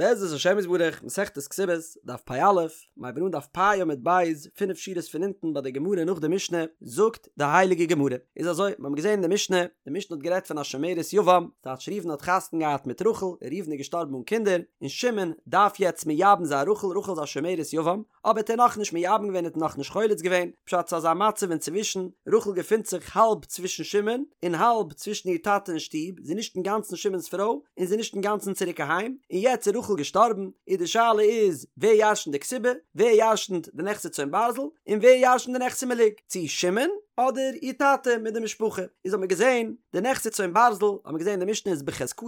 בעזרת השם יתברך, מסכת כתובות, דף פ"א, מ'הייבן אן דף פ' עמוד ב', פינף שורות פון אונטן ביי די גמרא נאך די משנה, זאגט די הייליגע גמרא, איז אזוי, מיר האבן געזען אין די משנה, די משנה האט גערעדט פון א שומרת יבם, טייטש ראובן האט חתונה געהאט מיט רחל, און ראובן איז געשטארבן אן קינדער, און שמעון דארף יעצט מייבם זיין רחל, רחל איז א שומרת יבם, אבער האט ער נאכנישט מייבם געווען האט נאכנישט חולץ געווען, פשט ס'איז אזא מצב אינצווישן, רחל געפינט זיך האלב צווישן שמעון, און האלב צווישן איר טאטע אין שטוב, זי איז נישט אינגאנצן שמעון'ס פרוי, און זי איז נישט אינגאנצן צוריק אהיים, און יעצט איז רחל געשטארבן, איז די שאלה איז, ווער ירשנט די כתובה, ווער ירשנט די נכסי צאן ברזל, און ווער ירשנט די נכסי מלוג, צו שמעון, אדער איר טאטע מיט די משפחה, איז האט מען געזען, די נכסי צאן ברזל, האט מען געזען די משנה איז בחזקתן,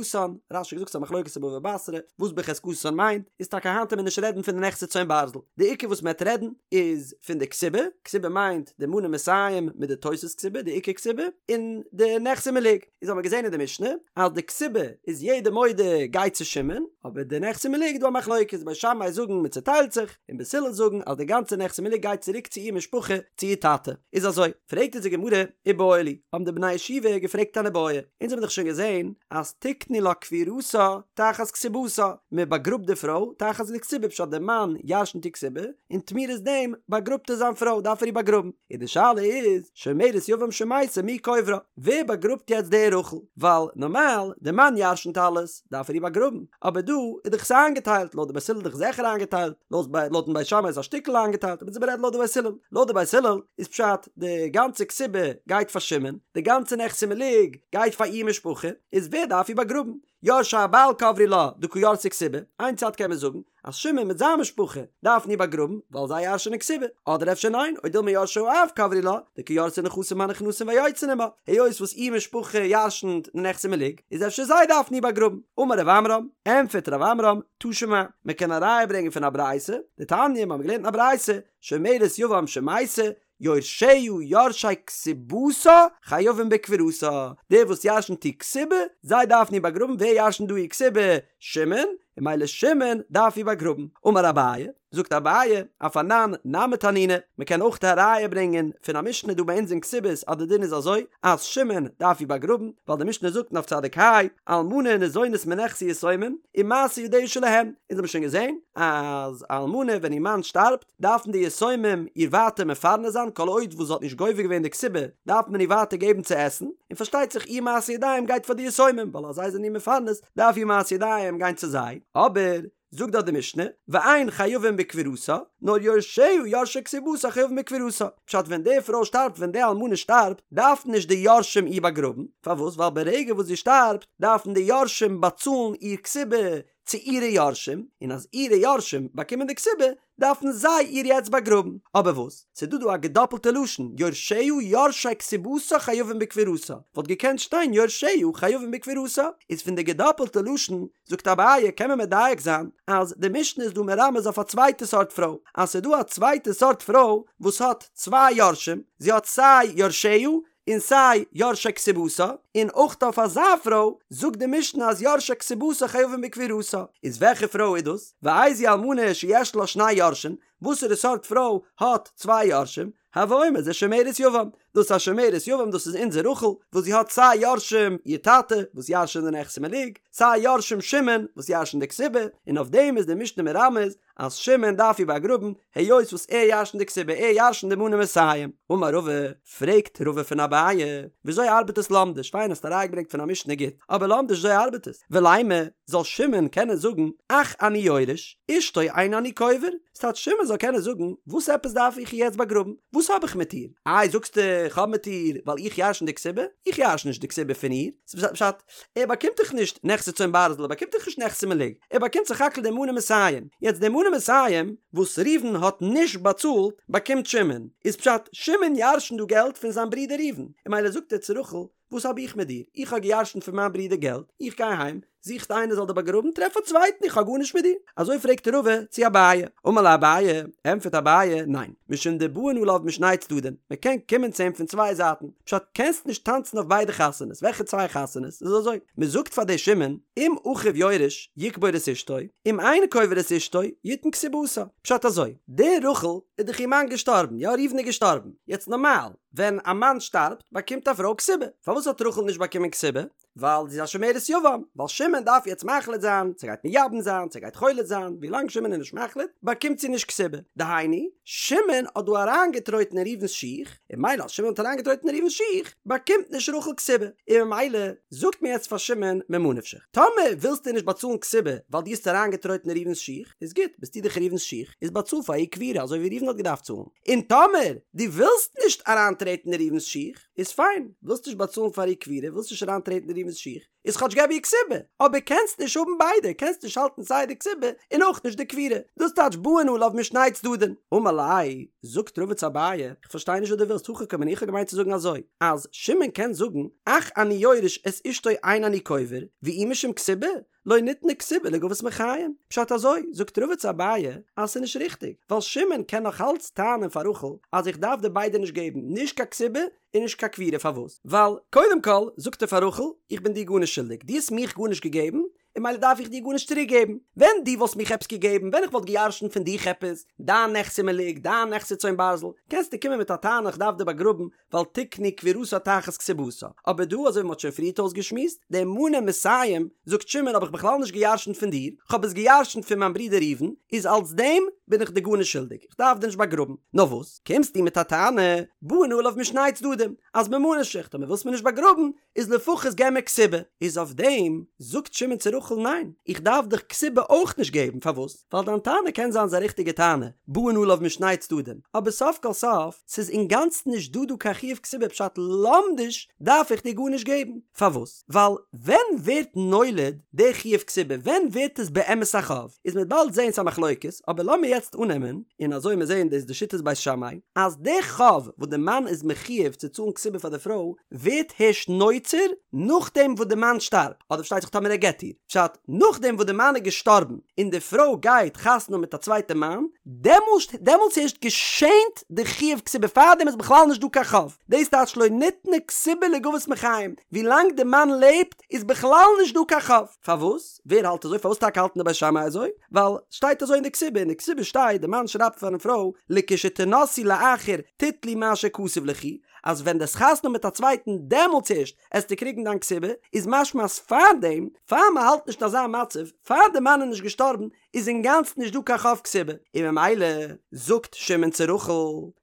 רש"י האט געזאגט ס'איז א מחלוקת אין בבא בתרא, וואס בחזקתן מיינט, איז טאקע היינט וועט מען נישט רעדן פון די נכסי צאן ברזל, די עיקר וואס מ'עט רעדן איז פון די כתובה, כתובה מיינט די מנה מאתים מיט די תוס' כתובה, די עיקר כתובה, און די נכסי מלוג, איז האט מען געזען אין די משנה אז די כתובה איז יעדער מודה גייט צו שמעון, אבער די נכסי מלוג איז דא א מחלוקת, בית שמאי זאגן מ'צוטיילט זיך, און בית הלל זאגן אז די גאנצע נכסי מלוג גייט צוריק צו איר משפחה, צו איר טאטע, איז אזוי, פרעגט אונז די גמרא, איבעיא להו, האבן די בני ישיבה געפרעגט אן איבעיא, אונז האבן דאך שוין געזען אז תקנו לה קבורתה תחת כתובתה, מען באגראבט די פרוי תחת די כתובה פשט די מאן ירשנט איר כתובה, און תמורת דעם באגראבט ער זיין פרוי דארף ער איר באגראבן, און די שאלה איז, שומרת יבם שמתה מי קוברה, ווער באגראבט יעצט די רחל, ווייל נארמאל די מאן ירשנט אלעס דארף ער איר באגראבן, אבער דא איז דאך עס איינגעטיילט, לויט די בית הלל איז דאך זיכער איינגעטיילט, לויטן בית שמאי איז א שטיקל איינגעטיילט, אבער מ'רעדט לויט די בית הלל, לויט די בית הלל איז פשט די גאנצע כתובה גייט פאר שמעון, די גאנצע נכסי מלוג גייט פאר איר משפחה, איז ווער דארף איר באגראבן? יורשי הבעל קברו לה דקא ירתי כתובה, איין צד קען מען זאגן אז שמעון מיט זיין משפחה דארפן איר באגראבן ווייל זיי ירש'ענען כתובה, אדער אפשר ניין, או דילמא יורשי האב קברו לה דקא ירתי נכסים הנכנסים והיוצאים עמה, היות וואס איר משפחה ירש'נט די נכסי מלוג, איז אפשר זיי דארפן איר באגראבן. אמר רב עמרם, ענטפערט רב עמרם, תא שמע, מען קען א ראיה ברענגען פון א ברייתא, דתניא, מיר האבן געלערנט אין א ברייתא, שומרת יבם שמתה, יורשיה יורשי כתובתה חייבים בקבורתה, די וואס ירשנט איר כתובה, זיי דארפן איר באגראבן, ווער ירשנט דא איר כתובה? שמעון, און ממילא שמעון דארף איר באגראבן. אמר אביי, זאגט אביי, אף אנן נמי תנינא, מען קען אויך א ראיה ברענגען פון א משנה דא ביי אונז אין כתובות אז די דין איז אזוי, אז שמעון דארף איר באגראבן, ווייל די משנה זאגט אין דף צדיק ה, אלמנה ניזונית מנכסי יתומים, ומעשה ידיה שלהם, אונז האבן שוין געזען אז א אלמנה ווען איר מאן שטארבט, דארפן די יתומים איר ווייטער מפרנס זיין כל עוד וואס זי האט נישט גובה געווען די כתובה דארף מען איר ווייטער געבן צו עסן, און פארשטייט זיך איר מעשה ידיים גייט פאר די יתומים ווייל אז זיי זענען איר מפרנס דארף איר מעשה ידיים גיין צו זיי, אבער זאגט דארט די משנה ואין חייבים בקבורתה נאר יורשיה יורשי כתובתה חייבים בקבורתה, פשט ווען די פרוי שטארבט ווען די אלמנה שטארבט דארפן נישט די יורשים איר באגראבן, פארוואס ווייל ברגע וואס זי שטארבט דארפן די יורשים באצאלן איר כתובה צו אירע יורשים, און אז אירע יורשים באקומען די כתובה, דארפן זיי איר יעצט באגראבן. אבער וואס? ס'איז דא דא א געדאפלטע לשון, יורשיה יורשי כתובתה חייבים בקבורתה, וואלט געקענט שטיין יורשיה חייבים בקבורתה. איז פון די געדאפלטע לשון, זאגט אביי, קען מען מדייק זיין, אז די משנה איז דא מרמז אויף א צווייטע סארט פרוי, אז ס'איז דא א צווייטע סארט פרוי וואס האט צוויי יורשים, זי האט סיי יורשיה און סיי יורשי כתובתה, און אויך אויף אזא פרוי זאגט די משנה אז יורשי כתובתה חייבים בקבורתה, איז וועלכע פרוי איז דאס? ואיזו אלמנה שיש לה שני יורשים, וואסערע סארט פרוי האט צוויי יורשים? הוי אומר זה שומרת יבם, דאס איז א שומרת יבם דאס איז אונזער רחל וואס זי האט סיי יורשים איר טאטע וואס ירש'ען די נכסי מלוג, סיי יורשים שמעון וואס ירש'ען די כתובה, און אויף דעם איז די משנה מרמז אז שמעון דארף איר באגראבן, היות וואס ער ירש'נט די כתובה, ער ירש'נט די מנה מאתים. אמר רבא, פרעגט רבא פון אביי, וויאזוי ארבעט עס לומדיש, פיין האסט א ראיה געברענגט פון א משנה גוט, אבער לומדיש וויאזוי ארבעט עס, ולימא, זאל שמעון קענען זאגן, אח אני יורש, אשתו אין אני קובר, ס'טייטש שמעון זאל קענען זאגן, וואס עפעס דארף איך איר יעצט באגראבן, וואס האב איך מיט איר, איי זאגסטו איך האב מיט איר ווייל איך ירש'ן די כתובה, איך ירש'ן נישט די כתובה פון איר, ס'פשט, ער באקומט דאך נישט נכסי צאן ברזל, ער באקומט דאך נישט נכסי מלוג, ער באקומט סך הכל די מנה מאתים, יעצט די מנה מאתים וואס ראובן האט נישט באצאלט באקומט שמעון, איז פשט שמעון ירש'נט דא געלט פון זיין ברודער ראובן, און ממילא זאגט ער צו רחל, וואס האב איך מיט דיר, איך האב געירש'נט פון מיין ברודער געלט, איך גיי אהיים, זוכסט איינער זאל דיר באגראבן, טרעף א צווייטן, איך האב גארנישט מיט דיר. אזוי פרעגט רבא צו אביי, אמר ליה אביי, ענטפערט אביי, ניין, משום דבאין עליו משני צדדים, מען קען קומען צו אים פון צוויי זייטן, פשט קענסט נישט טאנצן אויף ביידע חתונות, וועלכע צוויי חתונות? איז אזוי, מען זאגט פאר די שמעון, אם אחיו יורש, יקבור את אשתו, אם אינו קובר את אשתו, יתן כתובתה, פשט אזוי, די רחל איז דאך איר מאן געשטארבן, יא ראובן איז געשטארבן, יעצט נארמאל, ווען א מאן שטארבט באקומט א פרוי כתובה, פארוואס האט רחל נישט באקומען כתובה? ווייל זי איז א שומרת יבם, ווייל שמעון דארף יעצט מחליט זיין צו ער גייט מייבם זיין צו ער גייט חולץ זיין, ווילאנג שמעון איז נישט מחליט באקומט זי נישט כתובה, דהיינו, שמעון האט דא אריינגעטרויטן אין ראובן'ס שיך, און ממילא אז שמעון האט אריינגעטרויטן אין ראובן'ס שיך, באקומט נישט רחל כתובה, און ממילא זאגט מען יעצט פאר שמעון ממה נפשך, טאמער ווילסטו נישט באצאלן כתובה ווייל דו האסט אריינגעטרויטן אין ראובן'ס שיך, איז גוט, ביסטו דאך ראובן'ס שיך, איז באצאל פאר איר קבורה אזוי ווי ראובן האט געדארפט צאלן, און טאמער דו ווילסט נישט אריינטרעטן אין ראובן'ס שיך, איז פיין, ווילסט נישט באצאלן פאר איר קבורה, ווילסט נישט אריינטרעטן אין ראובן'ס שיך, איז כאטש געב איר כתובה, אבער קענסט נישט האבן ביידע, קענסט נישט האלטן סיי די כתובה און אויך נישט די קבורה, דאס טייטש באין עליו משני צדדים. אמר ליה, זאגט רבא צו אביי, איך פארשטיי נישט וואס דו ווילסט, הכי קאמינא, איך האב געמיינט צו זאגן אזוי, אז שמעון קען זאגן, אח אני יורש את אשתו אין אני קובר, ואי משום כתובה, לא ניתנה כתובה לגבות מחיים. פשט אזוי, זאגט רבא צו אביי, אז ס'איז נישט ריכטיג, ווייל שמעון קען נאך אלץ טענה'ן פאר רחל אז איך דארף דיר ביידע נישט געבן, נישט קיין כתובה און נישט קיין קבורה, פארוואס? ווייל קודם כל זאגט ער פאר רחל, איך בין דיר גארנישט שולדיג, דו האסט מיך גארנישט געגעבן, און ממילא דארף איך דיר גארנישט צוריק געבן. ווען דו וואלסט מיך עפעס געגעבן, ווען איך וואלט גע'ירש'נט פון דיך עפעס, דיין נכסי מלוג, דיין נכסי צאן ברזל, קענסטו קומען מיט א טענה איך דארף דיר באגראבן, ווייל תקנו קבורתה תחת כתובתה. אבער דא, אזוי ווי מ'האט שוין פריערט אויסגעשמועסט, די מנה מאתים, זאגט שמעון האב איך בכלל נישט גע'ירש'נט פון דיר, כ'האב עס גע'ירש'נט פון מיין ברודער ראובן, איז אלס דעם בין איך דיר גארנישט שולדיג, איך דארף דיר נישט באגראבן. נאר וואס, קומסטו מיט א טענה, באין עליו משני צדדים, אז ממה נפשך, טאמער ווילסט מיר נישט באגראבן, איז לפחות געב מיר כתובה. איז אויף דעם זאגט שמעון צו רחל ניין, איך דארף דיך כתובה אויך נישט געבן, פארוואס? ווייל דיין טענה קען זיין ס'איז א ריכטיגע טענה, באין עליו משני צדדים, אבער סוף כל סוף, ס'איז אינגאנצן נישט דא דא קיין חיוב כתובה פשט לומדיש דארף איך דיר גארנישט געבן, פארוואס? ווייל ווען ווערט נולד די חיוב כתובה, ווען ווערט עס באמת א חוב, איז מ'וועט באלד זעהן ס'איז א מחלוקת, אבער לאמיר יעצט אננעמען, און אזוי מיר זעהן דאס די שיטת בית שמאי, אז די חוב וואס די מאן איז מחויב צו צאלן כתובה פאר די פרוי, ווערט הערשט נוצר נאכדעם וואס די מאן שטארבט, אדער פארשטייט זיך טאמער ער גט איר, פשט, נאכדעם וואס די מאן איז געשטארבן און די פרוי גייט חתונה האבן מיט א צווייטע מאן, דעמאלסט דעמאלטס הערשט געשענט די חיוב כתובה, פארדעם איז בכלל נישט דא קיין חוב, דאס טייטש לא ניתנה כתובה לגבות מחיים, ווילאנג די מאן לעבט איז בכלל נישט דא קיין חוב. פארוואס? ווער האלט אזוי? פארוואס טאקע האלטן די בית שמאי אזוי? ווייל שטייט אזוי אין די כתובה, אין די כתובה שטייט די מאן שרייבט פארן פרוי לכשתנשאי לאחר תטלי מה שכתוב ליכי, אז ווען דו עסט חתונה האבן מיט א צווייטן דעמאלטס ערשט עסטו קריגן דיין כתובה, איז משמע אז פארדעם, פאר מען האלט נישט אזא מצב, פאר די מאן איז נישט געשטארבן, איז אינגאנצן נישט דא קיין חוב כתובה, און ממילא זאגט שמעון צו רחל,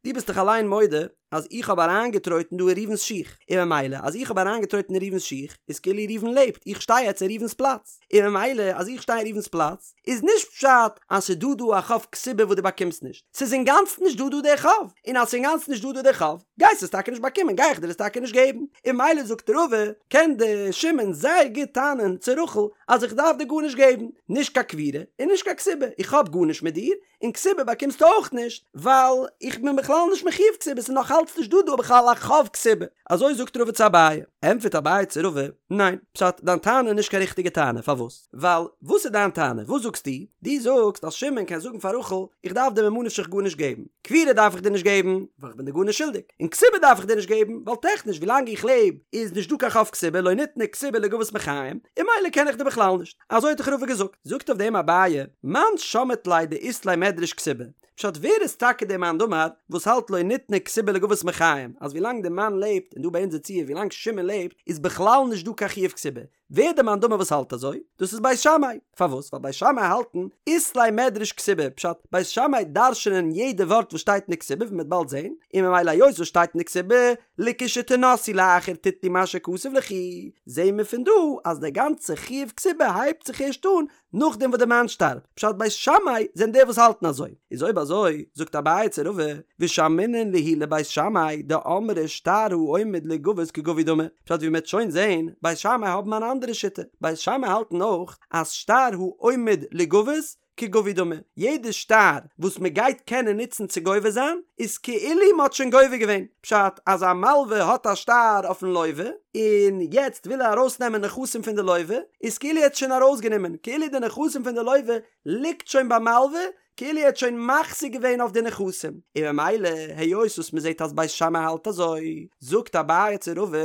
דו ביסט דאך אליין מודה אז איך האב אריינגעטרויטן דא אין ראובן'ס שיך, און ממילא אז איך האב אריינגעטרויטן אין ראובן'ס שיך, איז כאילו ראובן לעבט, איך שטיי יעצט אין ראובן'ס פלאץ, און ממילא אז איך שטיי אין ראובן'ס פלאץ, איז נישט פשט אז ס'איז דא דא א חוב כתובה וואס דו באקומסט נישט, ס'איז אינגאנצן נישט דא דא דער חוב, און אז ס'איז אינגאנצן נישט דא דא דער חוב, גייסט עס טאקע נישט באקומען, גיי איך דיר עס טאקע נישט געבן, און ממילא זאגט רבא, קען די שמעון זייער גוט טענה'ן צו רחל אז איך דארף דיר גארנישט געבן, נישט קיין קבורה און נישט קיין כתובה, איך האב גארנישט מיט דיר, און כתובה באקומסטו אויך נישט, ווייל איך בין בכלל נישט מחויב כתובה, ס'איז נאך אלץ נישט דא דא בכלל א חוב כתובה. אזוי זאגט רבא צו אביי. ענטפערט אביי צו רבא, ניין, פשט, דיין טענה איז נישט קיין ריכטיגע טענה, פארוואס? ווייל, וואס איז דיין טענה? וואס זאגסטו? דו זאגסט אז שמעון קען זאגן פאר רחל, איך דארף דיר ממה נפשך גארנישט געבן, קבורה דארף איך דיר נישט געבן, ווייל איך בין דיר גארנישט שולדיג, און כתובה דארף איך דיר נישט געבן, ווייל טעכניש ווילאנג איך לעב איז נישט דא קיין חוב כתובה, לא ניתנה כתובה לגבות מחיים, און ממילא קען איך דיר בכלל נישט. אזוי האט דאך רבא געזאגט. זאגט אויף דעם אביי, מאן שמעת ליה דאית ליה מדרש כתובה, פשט ווער איז טאקע דער מאן דאמר וואס האלט לא ניתנה כתובה לגבות מחיים, אז ווילאנג דער מאן לעבט, און דא ביי אונזער ציור ווילאנג שמעון לעבט, איז בכלל נישט דא קיין חיוב כתובה, ווער דער מאן דאמר וואס האלט אזוי? דאס איז בית שמאי, פארוואס? ווייל בית שמאי האלטן אית ליה מדרש כתובה, פשט, בית שמאי דרש'נען יעדע ווארט וואס שטייט אין די כתובה ווי מ'וועט באלד זען, און ממילא היות וואס שטייט אין די כתובה, לכשתנשאי לאחר תטלי מה שכתוב ליכי, זעהן מיר פון דא אז דער גאנצע חיוב כתובה הייבט זיך ערשט אן נאכדעם וואס דער מאן שטארבט, פשט בית שמאי זענען די וואס האלטן אזוי, איז אויב אזוי זאגט אביי צו רבא, ושמעינן להו לבית שמאי דאמרי שטר העומד ליגבות כגבוי דמי, פשט ווי מ'וועט שוין זעהן, בית שמאי האבן אן אנדערע שיטה, בית שמאי האלטן אויך אז שטר העומד ליגבות כגבוי דמי, יעדע שטר וואס מען גייט קענען נוצן צו גובה זיין, איז כאילו מען האט שוין גובה געווען, פשט אז א מלווה האט א שטר אויפן לווה, און יעצט וויל ער ארויסנעמען נכסים פון די לווה, איז כאילו ער האט שוין ארויסגענומען, כאילו די נכסים פון די לווה ליגט שוין ביים מלווה, כאילו ער האט שוין מחזיק געווען אויף די נכסים, און ממילא היות וואס מען זעט אז בית שמאי האלט אזוי, זאגט אביי צו רבא,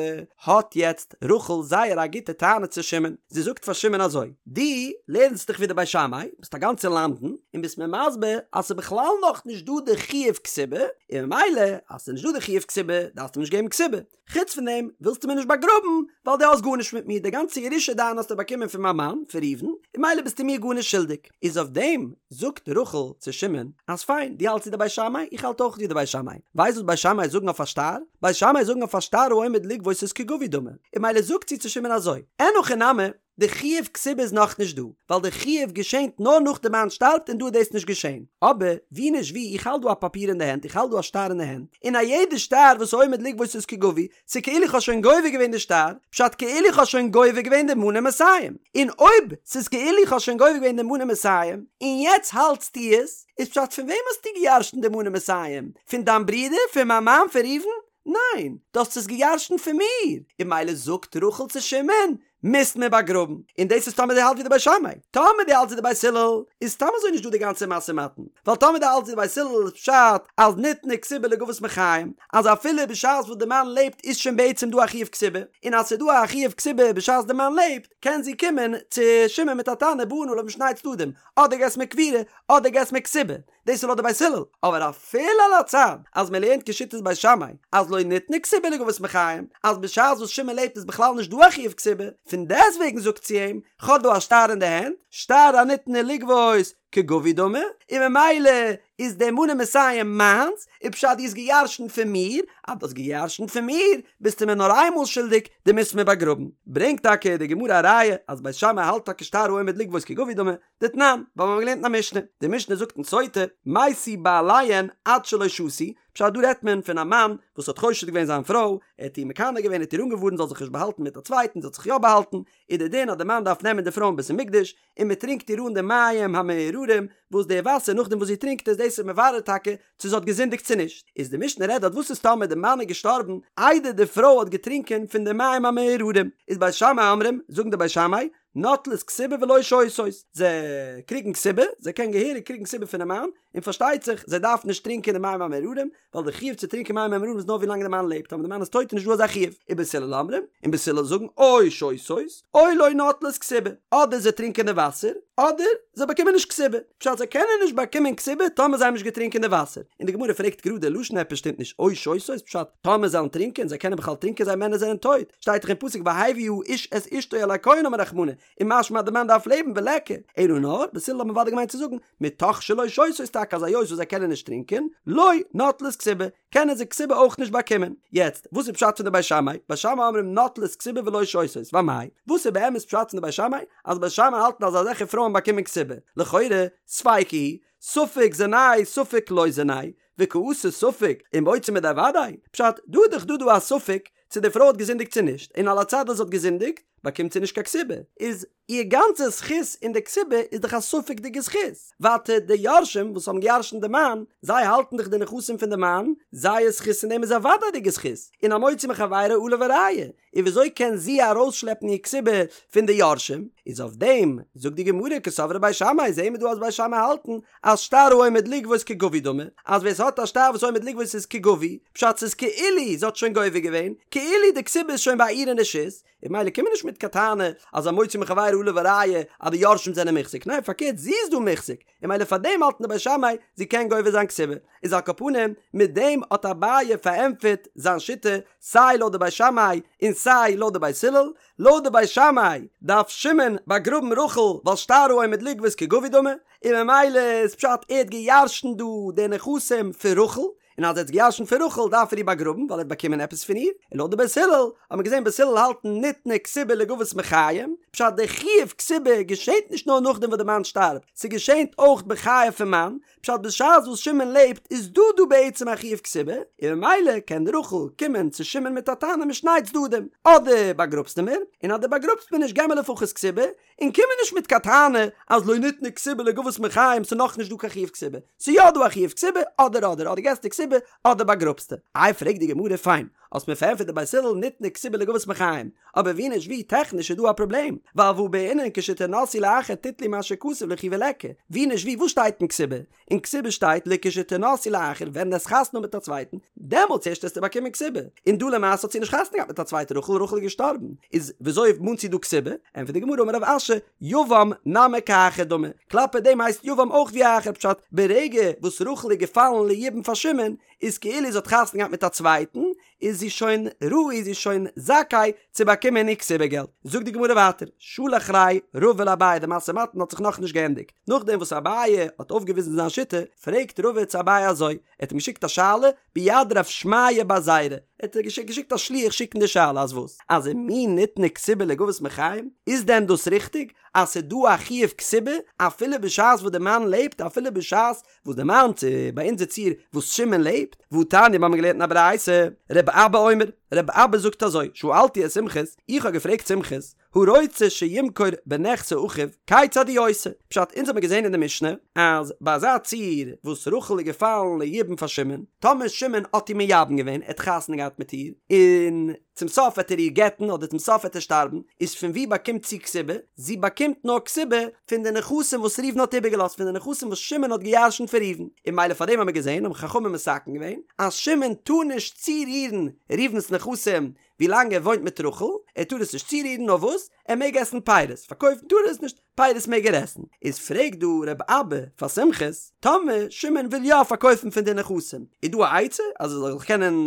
האט יעצט רחל זייער א גוטע טענה צו שמעון, זי זאגט פאר שמעון אזוי, דו לערנסט דיך ווי די בית שמאי, ביסט א גאנצע. צו למדן און ביסט מיר מסביר אז ס'איז בכלל נאכנישט דא די חיוב כתובה, און ממילא אז ס'איז נישט דא די חיוב כתובה דארפסטו מיר נישט געבן כתובה. חוץ פון דעם ווילסטו מיר נישט באגראבן ווייל דו האסט גארנישט מיט מיר, די גאנצע ירושה דיינע האסטו באקומען פון מיין מאן, פון ראובן, און ממילא ביסטו מיר גארנישט שולדיג. איז אויף דעם זאגט רחל צו שמעון אז פיין, דו האלטסט ווי די בית שמאי, איך האלט אויך ווי די בית שמאי. ווייסט וואס בית שמאי זאגן אויף א שטר? בית שמאי זאגן אויף א שטר העומד לגבות איז כגבוי דמי. און ממילא זאגט זי צו שמעון אזוי, אין הכי נמי, די חיוב כתובה איז נאכנישט דא, ווייל די חיוב געשענט נאר נאך די מאן שטארבט און דא איז דאס נישט געשען. אבער, ווי נישט ווי, איך האלט דא א פאפיר אין די הענט, איך האלט דא א שטר אין די הענט, און א יעדע שטר וואס עומד לגבות איז כגבוי, ס'כאילו איך האב שוין גובה געווען די שטר, פשט כאילו איך האב שוין גובה געווען די מנה מאתים. און אויב ס'איז כאילו איך האב שוין גובה געווען די מנה מאתים, און יעצט האלטסטו עס, איז פשט פון וועם האסטו געירשנט די מנה מאתים? פון דיין ברודער? פון מיין מאן? פון ראובן? ניין, דו האסט עס געירשנט פון מיר! און ממילא זאגט רחל צו שמעון, מוזט מיר באגראבן. און דאס איז טאמער דו האלטסט ווי די בית שמאי. טאמער דו האלטסט ווי די בית הלל, איז סתם אזוי נישט דא די גאנצע משא ומתן. ווייל טאמער דו האלטסט ווי די בית הלל איז פשט אז ניתנה כתובה לגבות מחיים, אז אפילו בשעת וואס די מאן לעבט איז שוין בעצם דא א חיוב כתובה, און אז ס'איז דא א חיוב כתובה בשעת די מאן לעבט, קען זי קומען צו שמעון מיט א טענה באין עליו משני צדדים, אדער געסט מיר קבורה, אדער געסט מיר כתובה. דאס איז לויט די בית הלל, אבער אפילו על הצד אז מען לערנט כשיטת בית שמאי אז לא ניתנה כתובה לגבות מחיים, אז בשעת וואס שמעון לעבט איז בכלל נישט דא א חיוב כתובה, פון דעסטוועגן זאגט זי אים, כ'האב דא א שטר אין די הענט, שטר הניתנה לגבות כגבוי דמי, און ממילא איז די מנה מאתים מיינס, און פשט דו האסט געירשנט פון מיר, אז דו האסט געירשנט פון מיר, ביסטו מיר נאר איינמאל שולדיג, דו מוזט מיר באגראבן. ברענגט טאקע די גמרא א ראיה אז בית שמאי האלט טאקע שטר העומד לגבות כגבוי דמי, דתנן, ווייל מיר האבן געלערנט אין א משנה, די משנה זאגט אין סוטה, מתו בעליהן עד שלא שתו, פשט דא רעדט מען פון א מאן וואס האט חושד געווען זיין פרוי, ער האט איר מקנא געווען, ער האט איר אנגעווארנט זאל זיך נישט באהאלטן מיט א צווייטן, זי האט זיך יא באהאלטן, איז די דין אז די מאן דארף נעמען די פרוי אין בית המקדש, און מען טרינקט איר אן די מים המאררים, וואס די וואסער נאכדעם וואס זי טרינקט עס, דאס איז מברר טאקע צו זי האט געזינדיגט צו נישט, איז די משנה רעדט דארט וואס איז טאמער די מאן איז געשטארבן איידער די פרוי האט געטרינקען פון די מים המאררים, איז בית שמאי אומרים, זאגן די בית שמאי, נוטלות כתובה ולא שותות, זיי קריגן כתובה, זיי קענען געהעריג קריגן כתובה פונעם מאן, און פארשטייט זיך זיי דארפן נישט טרינקען די מים המאררים, ווייל די חיוב צו טרינקען מים המאררים איז נאר ווי לאנג די מאן לעבט, טאמער די מאן איז טויט איז נישט דא אזא חיוב, ובית הלל אומרים, און בית הלל זאגן או שותות, או לא נוטלות כתובה, אדער זיי טרינקען די וואסער, אדער זיי באקומען נישט כתובה, פשט זיי קענען נישט באקומען כתובה טאמער זיי האבן נישט געטרינקען די וואסער, און די גמרא פרעגט גראדע לשון עפעס שטימט נישט, או שותות, פשט טאמער זיי וועלן טרינקען, זיי קענען בכלל טרינקען זיי מענער זענען טויט, שטייט דאך אין פסוק והביא האיש את אשתו אל הכהן אמר רחמנא, און משמע אז די מאן דארף לעבן וליכא, אלא נאר, בית הלל האבן אוודאי געמיינט צו זאגן, מתוך שלא שותות טאקע אז היות וואס זיי קענען נישט טרינקען, לא נוטלות כתובה, קענען זיי כתובה אויך נישט באקומען. יעצט, וואס איז פשט פון די בית שמאי? בית שמאי אומרים נוטלות כתובה ולא שותות, ואמאי? וואס איז באמת פשט פון די בית שמאי? אז בית שמאי האלטן אז אזעלכע פרויען באקומען כתובה. לכאורה, ספיקא היא, ספק זינאי ספק לא זינאי, וקאתי ספק ומוציא מידי ודאי, פשט, דא איז דאך דא דא א ספק צו די פרוי האט געזינדיגט צו נישט, און על הצד אז זי האט געזינדיגט, באקומט זי נישט קיין כתובה, איז איר גאנצע זכות אין די כתובה איז דאך א ספק'דיגע זכות, ווייטער די יורשים וואס האבן געירשנט די מאן, זיי האלטן דאך די נכסים פון די מאן, זייער זכות אין דעם איז א וודאי'דיגע זכות, און המוציא מחבירו עליו הראיה, און וויאזוי קען זי ארויסשלעפן איר כתובה פון די יורשים? איז אויף דעם זאגט די גמרא קסברי בית שמאי, זעהן מיר דא אז בית שמאי האלטן אז שטר העומד לגבות כגבוי דמי, אז ווער ס'האט א שטר וואס עומד לגבות איז כגבוי, פשט ס'איז כאילו זי האט שוין גובה געווען, כאילו די כתובה איז שוין ביי איר אין רשות, און ממילא קום מיר נישט מיט קיין טענה אז המוציא מחבירו עליו הראיה אז די יורשים זענען מוחזק, ניין פארקערט זי איז דא מוחזק, און ממילא פאר דעם האלטן די בית שמאי זי קען גובה זיין כתובה, איז על כל פנים מיט דעם האט אביי פארענטפערט זיין שיטה סיי לויט די בית שמאי און סיי לויט די בית הלל, לויט די בית שמאי דארף שמעון באגראבן רחל ווייל שטר העומד לגבות כגבוי דמי, און ממילא איז פשט ער האט געירשנט דא די נכסים פון רחל, און אז ער האט געירשנט פון רחל דארף ער איר באגראבן ווייל ער האט באקומען עפעס פון איר, און לויט די בית הלל האט מען געזען בית הלל האלטן ניתנה כתובה לגבות מחיים, פשט די חיוב כתובה געשענט נישט נאר נאכדעם וואס די מאן שטארבט, ס'געשענט אויך בחייו פון מאן, פשט בשעת וואס שמעון לעבט איז דא דא בעצם א חיוב כתובה, און ממילא קען רחל קומען צו שמעון מיט א טענה משני צדדים, אדער באגראבסטו מיר, און אז דו באגראבסט מיר נישט געב מיר לפחות כתובה, און קום מיר נישט מיט קיין טענה אז לא ניתנה כתובה לגבות מחיים ס'איז נאכנישט דא קיין חיוב כתובה, ס'איז יא דא א חיוב כתובה, אדער אדער אדער געסטו כתובה אדער באגראבסטו. איי פרעגט די גמרא פיין, האסט מיר פארענטפערט די בית הלל ניתנה כתובה לגבות מחיים, אבער ווי נישט ווי טעכניש איז דא א פראבלעם, ווייל והא בעינן כשתנשאי לאחר תיטלי מה שכתוב ליכי וליכא, ווי נישט ווי וואס שטייט אין כתובה? אין כתובה שטייט לכשתנשאי לאחר ווען דו וועסט חתונה האבן מיט א צווייטן, דעמאלטס ערשט וועסטו באקומען כתובה, און דא למעשה האט זי נישט חתונה געהאט מיט א צווייטע רחל, רחל איז געשטארבן, איז וויאזוי מאנט זי דא כתובה? ענטפערט די גמרא אמר רב אשי, יבם נמי כאחר דמי, כלפי דעם הייסט יבם אויך ווי א אחר פשט, ברגע וואס רחל איז געפאלן ליבום פאר שמעון, איז כאילו זי האט חתונה געהאט מיט א צווייטן, איז זי שוין ראוי זי איז שוין זכאי צו באקומען איר כתובה געלט. זאגט די גמרא ווייטער, שלח ליה רבא לאביי די משא ומתן האט זיך נאכנישט געענדיגט, נאכדעם וואס אביי האט אויפגעוויזן זיין שיטה, פרעגט רבא צו אביי אזוי, ער האט אים געשיקט א שאלה ביד רב שמעיה בר זירא, ער האט געשיקט א שליח שיקן די שאלה אז וואס? אז ומי ניתנה כתובה לגבות מחיים? איז דען דאס ריכטיג אז ס'איז דא א חיוב כתובה אפילו בשעת וואס די מאן לעבט אפילו בשעת וואס די מאן צו ביי אונזער ציור וואס שמעון לעבט, והתניא מיר האבן געלערנט אין א ברייתא, רב אבא אומר, רב אבא זאגט אזוי, שאלתי את סומכוס, איך האב געפרעגט סומכוס, הרוצה שימכור בנכסי אחיו, כיצד הוא עושה? פשט, אונז האבן געזען אין די משנה, אז ביי אזא ציור וואס רחל איז געפאלן ליבום פאר שמעון, טאמער שמעון האט איר מייבם געווען, ער האט חתונה געהאט מיט איר, און צום סוף וועט ער איר גט'ן אדער צום סוף וועט ער שטארבן, איז פון וואו באקומט זי כתובה? זי באקומט נאר כתובה פון די נכסים וואס ראובן האט איבערגעלאזט, פון די נכסים וואס שמעון האט געירשנט פון ראובן, און ממילא פאר דעם האבן מיר געזען האבן חכמים מתקן געווען אז שמעון טאר נישט צורירן ראובן'ס נכסים ווילאנג ער וואוינט מיט רחל, ער טאר עס נישט צורירן נאר וואס? ער מעג עסן פירות, פארקויפן טאר ער עס נישט, פירות מעג ער עסן, איז פרעגט דא רב אבא פאר סומכוס, טאמער שמעון וויל יא פארקויפן פון די נכסים, איז דא א עצה אז ער זאל זיך קענען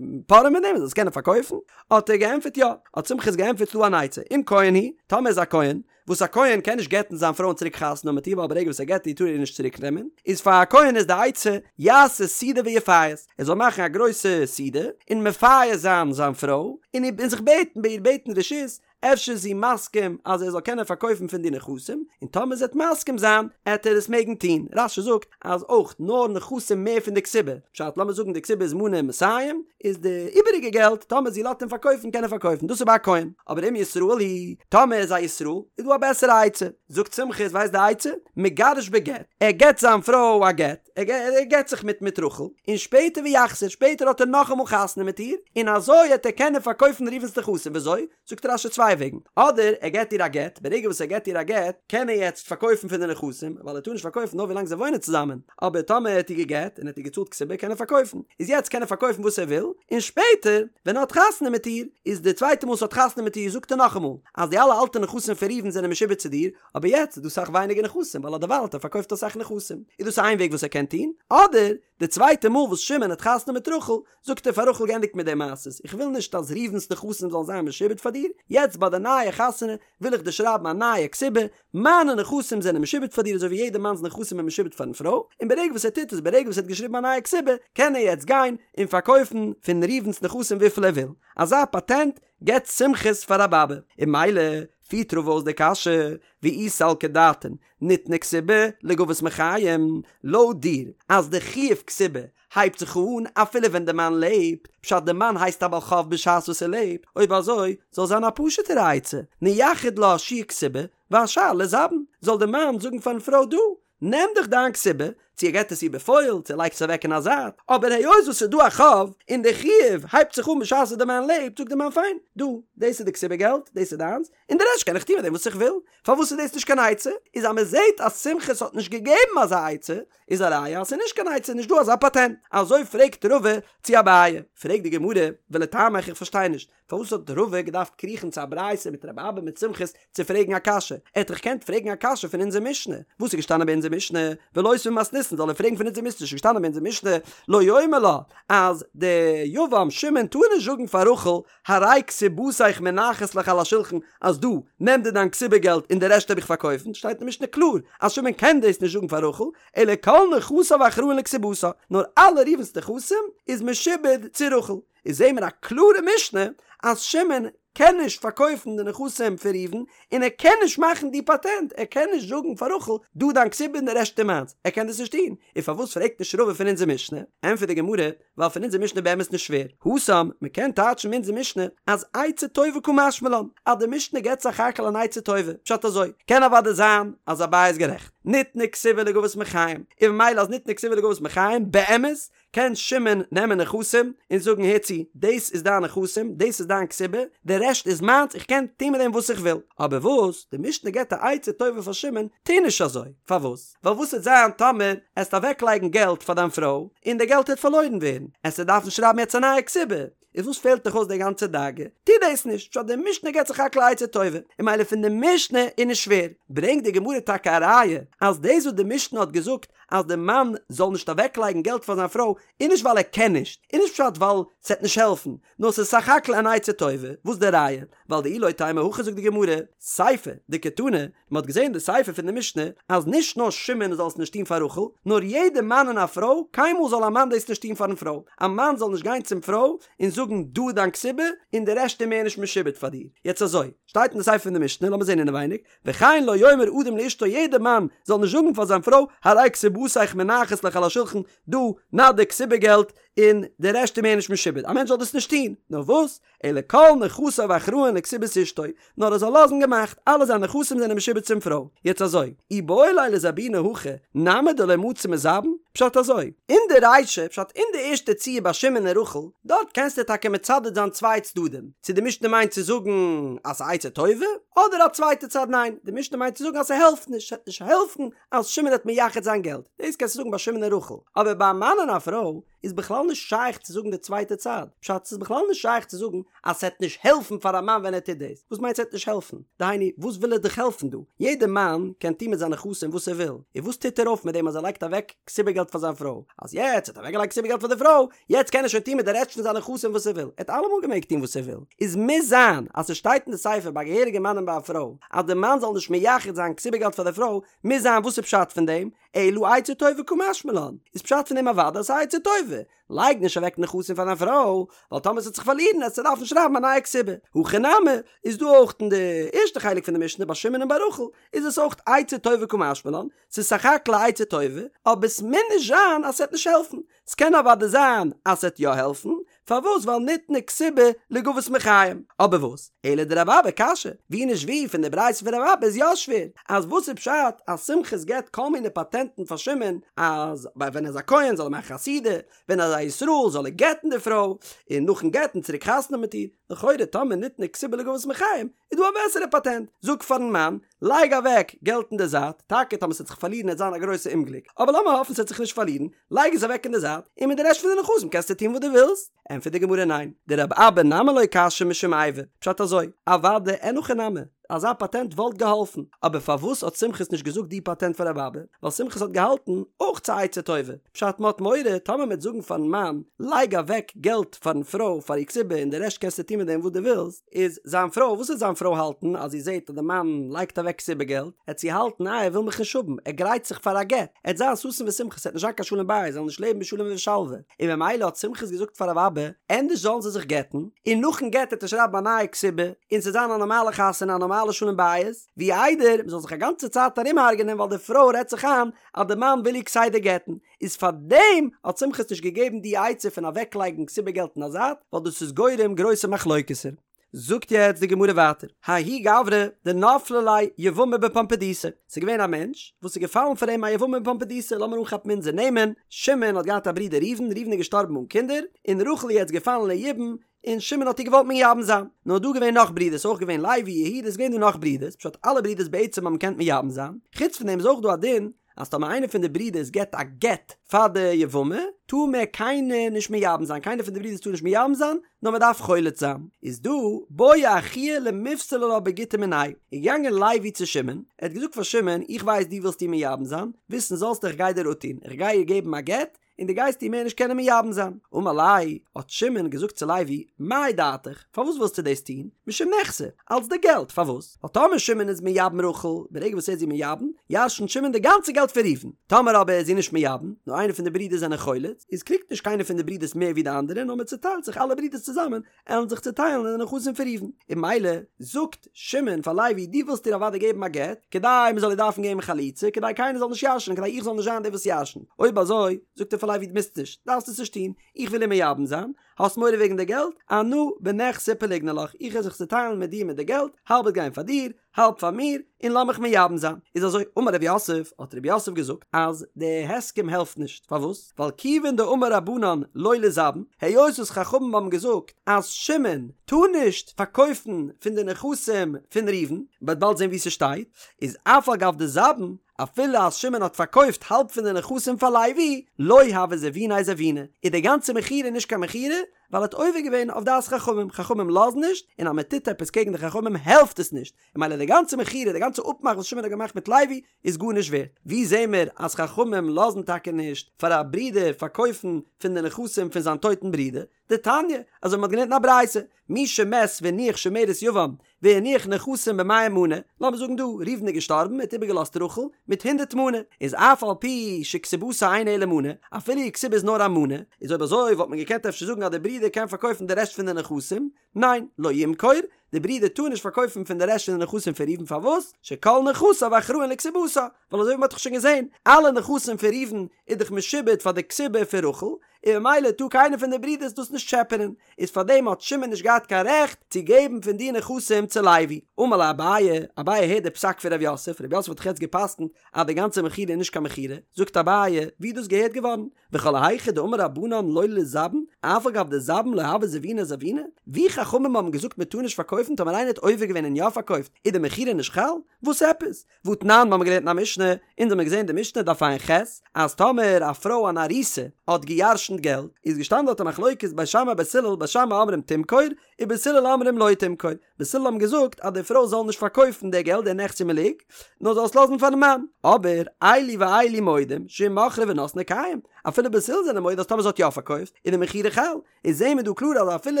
פארען מיט דעם, ער זאל עס קענען פארקויפן? האט ער געענטפערט יא, האט סומכוס געענטפערט ס'דא אן עצה, אם כהן הוא, טאמער איז א כהן, וואס א כהן קען נישט גט'ן זיין פרוי און צוריק חתונה האבן מיט איר ווייל ברגע וואס ער גט איר טאר ער איר נישט צוריק נעמען, איז פאר א כהן איז די עצה, יעשה סעודה ויפייס, ער זאל מאכן א גרויסע סעודה און מפייס זיין זיין פרוי, און זיך בעטן ביי איר בעטן רשות, אפשר איז זי מסכים אז ער זאל קענען פארקויפן פון די נכסים, און טאמער זי וועט מסכים זיין, עט ער עס מעגן טון. רש"י זאגט אז אויך נאר נכסים מער פון די כתובה, פשט לאמיר זאגן די כתובה איז מנה מאתים, איז די איבעריגע געלט טאמער זי לאזט אים פארקויפן קען ער פארקויפן, דאס איז ביי א כהן, אבער אם ישראל הוא, טאמער איז א ישראל, איז דא א בעסערע עצה, זאגט סומכוס ווייסט די עצה? מגרש בגט, ער געט זיין פרוי א גט, ער גט זיך מיט מיט רחל, און שפעטער ויחזור, שפעטער האט ער נאכאמאל חתונה מיט איר, און אזוי העט ער קענען פארקויפן ראובן'ס נכסים, וויאזוי? זאגט רש"י צוויי וועגן, אדער ער געט איר א גט, ברגע וואס ער געט איר א גט, קען ער יעצט פארקויפן פון די נכסים, ווייל ער טאר נישט פארקויפן נאר ווילאנג זיי וואוינען צוזאמען, אבער טאמער ער האט איר געגט און ער האט איר געצאלט כתובה קען ער פארקויפן, איז יעצט קען ער פארקויפן וואס ער וויל, און שפעטער ווען ער האט חתונה מיט איר, איז די צווייטע מאל וואס ער האט חתונה מיט איר זאגט ער נאכאמאל, אז די אלע אלטע נכסים פון ראובן זענען משועבד צו דיר, אבער יעצט איז דא סאך ווייניגער נכסים ווייל אדערווייל האט ער פארקויפט אסאך נכסים, איז דאס איין וועג וואס ער קען טון, אדער די צווייטע מאל וואס שמעון האט חתונה מיט רחל, זאגט ער פאר רחל געענדיגט מיט די מעשות, איך וויל נישט אז ראובן'ס נכסים זאלן זיין משועבד פאר דיר, יעצט ביי די נייע חתונה וויל איך דיר שרייבן א נייע כתובה, מיינע נכסים זענען משועבד פאר דיר אזוי ווי יעדע מאנ'ס נכסים איז משועבד פאר'ן פרוי, און ברגע וואס ער טוט עס, ברגע וואס ער האט געשריבן א נייע כתובה, קען ער יעצט גיין און פארקויפן פון ראובן'ס נכסים וויפיל ער וויל. אזא פאטענט געבט סומכוס פאר רב אבא, און ממילא פירט רבא אויס די קשיא, ואי סלקא דעתין, ניתנה כתובה לגבות מחיים, לויט דיר אז די חיוב כתובה הייבט זיך אן אפילו ווען די מאן לעבט, פשט די מאן הייסט א בעל חוב בשעת וואס ער לעבט, אויב אזוי זאל זיין א פשוטערע עצה, נייחד לה שיעור כתובה והשאר ליזבן, זאל די מאן זאגן פארן פרוי דא, נעם דיך דיין כתובה, צו ער געט עס איר בפועל, צו ער לייגט עס אוועק אין א זייט, אבער היות וואס ס'איז דא א חוב, און די חיוב הייבט זיך אן בשעת וואס די מאן לעבט, זאגט די מאן פיין, דא, דאס איז די כתובה געלט, דאס איז דיינס, און די רעשט קען איך טון מיט דעם וואס איך וויל. פארוואס איז דאס נישט קיין עצה? איז אז מען זעט אז סומכוס האט נישט געגעבן אזא עצה, איז א ראיה אז ס'איז נישט קיין עצה, נישט דא אזא פאטענט. אזוי פרעגט רבא צו אביי. פרעגט די גמרא, ולטעמיך איך פארשטיי נישט, פארוואס האט רבא געדארפט קריכן צו א ברייתא מיט רבי אבא מיט סומכוס צו פרעגן א קשיא? ער האט דאך געקענט פרעגן א קשיא פון אונזער משנה. וואס איז געשטאנען ביי אונזער משנה? ולותביה ממתניתין זאל ער פרעגן פון אונזער משנה ס'איז געשטאנען ביי אונזער משנה לא יאמר לה אז די יבם שמעון טאר נישט זאגן פאר רחל הרי כתובתיך מונחת לך על השולחן אז דא נעם דיר דיין כתובה געלט און די רעשט האב איך פארקויפן שטייט אין משנה קלאר אז שמעון קען דאס נישט זאגן פאר רחל אלא כל נכסיו אחראין לכתובתה נאר אלע ראובן'ס נכסים איז משועבד צו רחל איז זעהן מיר א קלארע משנה אז שמעון קען נישט פארקויפן די נכסים פון ראובן און ער קען נישט מאכן די פאטענט, ער קען נישט זאגן פאר רחל דא דיין כתובה און די רעשט איז מיינס, ער קען דאס נישט טון, און פארוואס פרעגט נישט רבא פון אונזער משנה? ענטפערט די גמרא, ווייל פון אונזער משנה באמת נישט שווער. התם, מען קען טייטשן אין אונזער משנה אז עצה טובה קא משמע לן, אז די משנה געבט סך הכל אן עצה טובה, פשט אזוי, קען אוודאי זיין אז אביי איז גערעכט, ניתנה כתובה לגבות מחיים, און ממילא אז ניתנה כתובה לגבות מחיים, באמת קען שמעון נעמען נכסים און זאגן הער צו, דאס איז דיין נכסים, דאס איז דיין כתובה, די רעשט איז מיינס, איך קען טון מיט דעם וואס איך וויל. אבער וואס, די משנה געבט א עצה טובה פאר שמעון, טו נישט אזוי. פארוואס? ווייל וואס וועט זיין טאמער עסט אוועקלייגן געלט פאר דיין פרוי, און די געלט העט פארלוירן ווערן, עסטו דארפן שרייבן יעצט א נייע כתובה, איז וואס פעלט דיך אויס די גאנצע דאגה? טו דאס נישט, פשט די משנה געבט סך הכל א עצה טובה, און ממילא פון די משנה איז נישט שווער. ברענגט די גמרא טאקע א ראיה אז דאס וואס די משנה האט געזאגט אז די מאן זאל נישט אוועקלייגן געלט פאר זיין פרוי איז נישט ווייל ער קען נישט, איז נישט פשט ווייל ס'עט נישט העלפן, נאר ס'איז סך הכל אן עצה טובה, וואס די ראיה? ווייל דאי לא תימא הכי זאגט די גמרא, סיפא דקתני, מ'האט געזען די סיפא פון די משנה אז נישט נאר שמעון זאל עס נישט טון פאר רחל, נאר יעדע מאן און א פרוי, קיינמאל זאל א מאן דאס נישט טון פארן פרוי, א מאן זאל נישט גיין צום פרוי און זאגן דא איז דיין כתובה און די רעשט איז מער נישט משועבד פאר דיר. יעצט אזוי, שטייט אין די סיפא פון די משנה, לאמיר זען אינעווייניג, וכן לא יאמר אדם לאשתו יעדע מאן זאל נישט זאגן פאר זיין פרוי הרי כתובתיך מונחת לך על השולחן, דא, נא די כתובה געלט, און די רעשט איז מער נישט משועבד, א מענטש זאל דאס נישט טון, נאר וואס? אלא כל נכסיו אחראין לכתובת אשתו, נאר ער זאל לאזן געמאכט, אלע זיינע נכסים זענען משועבד צום פרוי. יעצט אזוי, איבעי ליה לזבוני הכי, נמי דלא מצי מזבין? פשט אזוי, אין די רישא, פשט אין די ערשטע ציור ביי שמעון און רחל, דארט קענסטו טאקע מצדד זיין צוויי צדדים, צו די משנה מיינט צו זאגן אז ס'איז עצה טובה, אדער א צווייטע צד ניין, די משנה מיינט צו זאגן אז ס'העלפט נישט, ס'וועט נישט העלפן אז שמעון וועט מייחד זיין געלט, דאס קענסטו זאגן ביי שמעון און רחל, אבער ביי א מאן און א פרוי איז בכלל נישט שייך צו זאגן די צווייטע צד, פשט ס'איז בכלל נישט שייך צו זאגן אז ס'עט נישט העלפן פאר א מאן ווען ער טוט דאס, וואס מיינט ס'עט נישט העלפן? דהיינו וואס וויל ער דיך העלפן דא? יעדע מאן קען טון מיט זיינע נכסים וואס ער וויל, און וואס טוט ער אויף מיט דעם אז ער לייגט אוועק כתובה געלט פאר זיין פרוי? אז יעצט האט ער אוועקגעלייגט כתובה געלט פאר די פרוי, יעצט קען ער שוין טון מיט די רעשט פון זיינע נכסים וואס ער וויל, ער האט אלעמאל געמעגט טון וואס ער וויל, איז מוז זיין אז ס'שטייט אין די סיפא ביי א געהעריגע מאן און ביי א פרוי אז די מאן זאל נישט מייחד זיין כתובה געלט פאר די פרוי, מוז זיין וואס איז פשט פון דעם? אלא עצה טובה קא משמע לן, איז פשט פון דעם אוודאי אז ס'איז עצה טובה, לייג נישט אוועק נכסים פאר דיין פרוי, ווייל טאמער ס'וועט זיך פארלירן עסטו דארפן שרייבן א נייע כתובה. הכא נמי, איז דא אויך אין די ערשטע חלק פון די משנה ביי שמעון און ביי רחל, איז עס אויך עצה טובה קא משמע לן, ס'איז סך הכל א עצה טובה, אבער ס'מוז נישט זיין אז ס'וועט נישט העלפן, ס'קען אוודאי זיין אז ס'וועט יא העלפן, פארוואס ווייל ניתנה כתובה לגבות מחיים, אבער וואס, אלא דרבי אבא קשיא, ווי נישט ווי פון די ברייתא פון רבי אבא איז יא שווער, אז וואס איז פשט אז סומכוס געבט כל מיני פאטענטן פאר שמעון, אז ווען ער איז א כהן זאל ער מאכן א סעודה, ווען ער איז א ישראל זאל ער גט'ן די פרוי, און נאכן גט'ן צוריק חתונה האבן מיט איר, לכאורה טאמער ניתנה כתובה לגבות מחיים, איז דא א בעסערע פאטענט, זאג פארן מאן, לייג אוועק געלט אין די זייט, טאקע טאמער ס'וועט זיך פארלירן עט זיין א גרויסע אומגליק, אבער לאמיר האפן ס'וועט זיך נישט פארלירן, לייג עס אוועק אין די זייט, און מיט די רעשט פון די נכסים קענסטו טון וואס דו ווילסט. ענטפערט די גמרא ניין, דרבי אבא נמי לא קשיא משום איבה, פשט אזוי, אוודאי אין הכי נמי, אזא פאטענט וואלט געהאלפן, אבער פארוואס האט סומכוס נישט געזאגט די פאטענט פאר רבי אבא, ווייל סומכוס האט געהאלטן, אויך ס'איז עצה טובה, פשט מ'האט מורא טאמער מ'עט זאגן פארן מאן, לייג אוועק געלט פארן פרוי פאר איר כתובה און די רעשט קענסטו טון מיט דעם וואס דו ווילסט, איז זיין פרוי, וואס וועט זיין פרוי האלטן אז זי זעט אז די מאן לייגט אוועק כתובה געלט, עט זי האלטן איי ער וויל מיך נישט האבן, ער גרייט זיך פאר א גט, עט זיין ששון ושמחה, ס'עט נישט זיין קיין שלום בית, זיי זאלן נישט לעבן בשלום ובשלווה, און ממילא האט סומכוס געזאגט פאר רבי אבא, ענדערש זאלן זיי זיך גט'ן, און נאכן גט עט ער שרייבן א נייע כתובה, און ס'עט זיין א נארמאלע חתונה א נארמאלע שלום בית, ווי איידער מ'זאל זיך א גאנצע צייט ארומהרג'ענען ווייל די פרוי רעדט זיך איין אז די מאן וויל איר כסדר גט'ן, איז פאר דעם האט סומכוס נישט געגעבן די עצה פון אוועקלייגן כתובה געלט אין א זייט, ווייל דאס איז גורם גרויסע מחלוקת'ער. זאגט יעצט די גמרא ווייטער, ההוא גברא דנפלה ליה יבמה בפומבדיתא, ס'איז געווען א מענטש וואס איז געפאלן פאר אים א יבמה בפומבדיתא, לאמיר אנכאפן אונזער נעמען, שמעון האט געהאט א ברודער ראובן, ראובן איז געשטארבן אן קינדער, און רחל איז יעצט געפאלן ליבום, און שמעון האט איר געוואלט מייבם זיין. נאר דא געווען נאך ברידערס, אויך געווען לוי, יהודה, איז געווען דא נאך ברידערס, פשט אלע ברידערס בעצם האבן געקענט מייבם זיין, חוץ פון דעם איז אויך דא א דין אז טאמער איינער פון די ברידערס געבט א גט פאר די יבמה, טאר מער קיינער נישט מייבם זיין, קיינער פון די ברידערס טאר נישט מייבם זיין, נאר מען דארף חולץ זיין. איז דא בעי אחוה למיפסלה לה בגיטא מיניה, איז געגאנגען לוי צו שמעון, ער האט געזאגט פאר שמעון, איך ווייס דו ווילסט איר מייבם זיין, וויסן זאלסטו איך גיי דיר אפטון, איך גיי איר געבן א גט, און דו גייסט איר מער נישט קענען מייבם זיין. אמר ליה, האט שמעון געזאגט צו לוי, מאי דעתיך, פארוואס ווילסטו דאס טון? משום נכסי, אלץ די געלט, פארוואס? ווייל טאמער שמעון איז מייבם רחל, ברגע וואס ער איז איר מייבם, ירשנט שמעון די גאנצע געלט פון ראובן. טאמער אבער איז זי נישט מייבם, נאר איינער פון די ברידער זענען חולץ, חמץ, איז קריגט נישט קיינער פון די ברידערס מער ווי די אנדערע נאר מען צוטיילט זיך אלע ברידערס צוזאמען עלן זיך צוטיילן אין די נכסים פון ראובן, און ממילא זאגט שמעון פאר לוי דו ווילסט איר אוודאי געבן א גט, כדי מען זאל איר דארפן געבן חליצה, כדי קיינער זאל נישט ירש'נען, כדי איך זאל נישט זיין דער וואס ירש'נט, אויב אזוי, זאגט ער פאר לוי דו מוזט נישט, דארפסט עס נישט טון, איך וויל איר מייבם זיין, האסט מורא וועגן די געלט? אנא בנכסי פליגנא לך, איך וועל זיך צוטיילן מיט דיר מיט די געלט, האלב וועט גיין פאר דיר, האלב פאר מיר, און לאמיך מייבם זיין. איז אזוי, אמר רב יוסף, האט רב יוסף געזאגט, אז די הסכם העלפט נישט, פארוואס? ווייל כיוון דאמור רבנן לא ליזבן, היות וואס חכמים האבן געזאגט אז שמעון טאר נישט פארקויפן פון די נכסים פון ראובן, מ'וועט באלד זען וואו ס'שטייט, איז אף על גב דזבן, אפילו אז שמעון האט פארקויפט האלב פון די נכסים פאר לוי, לא הוה זביניה זביני, איז די גאנצע מכירה נישט קיין מכירה, ווייל ער האט עובר געווען אויף דעת חכמים, חכמים לאזן נישט, און אז מען טוט עפעס קעגן די חכמים העלפט עס נישט, און ממילא די גאנצע מכירה, די גאנצע אפמאך וואס שמעון האט געמאכט מיט לוי, איז גארנישט ווערט. ווי זעהן מיר אז חכמים לאזן טאקע נישט פאר א ברודער פארקויפן פון די נכסים פון זיין טויטן ברודער? דתניא, אזוי ווי מ'האט געלערנט אין א ברייתא, מי שמת והניח שומרת יבם והניח נכסים במאה מנה, לאמיר זאגן דא, ראובן איז געשטארבן, ער האט איבערגעלאזט רחל מיט הונדערט מנה, איז אף על פי שכתובתה אינה אלא מנה, אפילו איר כתובה איז נאר א מנה, איז אויב אזוי וואלט מען געקענט אפשר זאגן אז דער ברודער קען פארקויפן די רעשט פון די נכסים, ניין, לא ימכור, די ברודער טאר נישט פארקויפן פון די רעשט פון די נכסים פון ראובן פארוואס? שכל נכסיו אחראין לכתובתה, ווייל אזוי ווי מ'האט דאך שוין געזען, אלע נכסים פון ראובן איז דאך משועבד פאר די כתובה פון רחל, און ממילא טאר קיינער פון די ברידערס דאס נישט טשעפענען, איז פארדעם האט שמעון נישט געהאט קיין רעכט צו געבן פון די נכסים צו לוי. אמר ליה אביי, אביי הערט די פסק פון ר' יוסף, ר' יוסף האט דאך יעצט גע'פסק'נט אז די גאנצע מכירה איז נישט קיין מכירה, זאגט אביי, ווי איז דאס געהערט געווארן? וכל היכא דאמור רבנן לא ליזבן, אף על גב דזבן לא הוה זביניה זביני? ווי חכמים האבן געזאגט מען טאר נישט פארקויפן טאמער איינער האט עובר געווען און יא פארקויפט איז די מכירה נישט חל? וואס עפעס? והתנן, מ'האמיר געלערנט אין א משנה, אונז האמיר געזען די משנה דף ע"ח, אז טאמער א פרוי אן ארוסה האט גע'ירש'נט געלט, איז געשטאנען דארט א מחלוקת בית שמאי בית הלל, בית שמאי אומרים תמכור, ובית הלל אומרים לא תמכור, בית הלל האבן געזאגט אז די פרוי זאל נישט פארקויפן די געלט די נכסי מלוג, נאר זאל עס לאזן פארן מאן, אבער אלו ואלו מודים שאם מכרה ונתנה קיים, אפילו בית הלל זענען מודה אז טאמער זי האט יא פארקויפט, איז די מכירה חל, איז זעהן מיר דא קלאר אז אפילו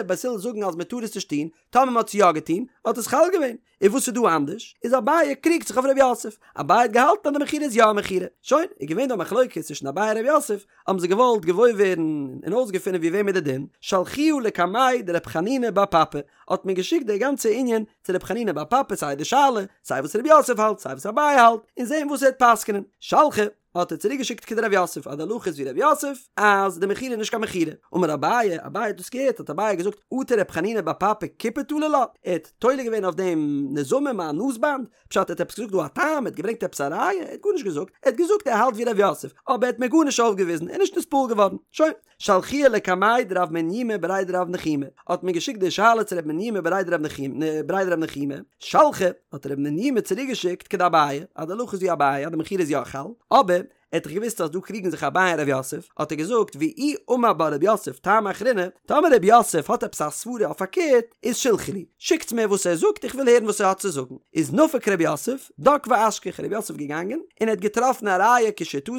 בית הלל זאגן אז מ'טאר עס נישט טון, טאמער מ'האט עס יא געטון, האט עס חל געווען. און וואס איז דא אנדערש? איז אביי קריגט זיך אויף ר' יוסף, אביי האט געהאלטן אז די מכירה איז יא א מכירה, שוין, איז געווען דא א מחלוקת צווישן אביי און ר' יוסף, האבן זיי געוואלט געוואויר ווערן און אויסגעפינען ווי וועם איז די דין, שלחוה לקמיה דרב חנינא בר פפא, האט מען געשיקט די גאנצע ענין צו רב חנינא בר פפא סיי די שאלה, סיי וואס ר' יוסף האלט, סיי וואס אביי האלט, און זען וואס ער וועט פסק'נען, שלחה. האט ער צוריק געשיקט כדרב יוסף אז די הלכה איז ווי רב יוסף אז די מכירה איז נישט קיין מכירה, אמר אביי, אביי האט דאס געהערט האט אביי געזאגט אטו רב חנינא בר פפא כיפה תלה לה, ער האט תולה געווען אויף דעם נזמים א נאז באנד, פשט ער האט עפעס געזאגט דא א טעם, ער האט געברענגט עפעס א ראיה, ער האט גארנישט געזאגט, ער האט געזאגט ער האלט ווי רב יוסף, אבער ער האט מיר גארנישט אויפגעוויזן, ער איז נישט נתפעל געווארן, שוין. שלחוה לקמיה דרב מניומי בריה דרב נחומי, האט מען געשיקט די שאלה צו רב מניומי בריה דרב נחומי, שלחה, האט רב מניומי צוריק געשיקט כדאביי, אז די הלכה איז ווי אביי אז די מכירה איז יא חל, אבער, ער האט דאך געוואוסט אז דא קריגן זיך אביי און רב יוסף, האט ער געזאגט ואי אמר בה רב יוסף טעמא אחרינא, טאמער רב יוסף האט עפעס א סברה אויף פארקערט, איז שלחו לי, שיקטס מיר וואס ער זאגט איך וויל הערן וואס ער האט צו זאגן, איז נפק רב יוסף, דק ואשכח, רב יוסף געגאנגען, און ער האט געטראפן א ראיה כשיטתו,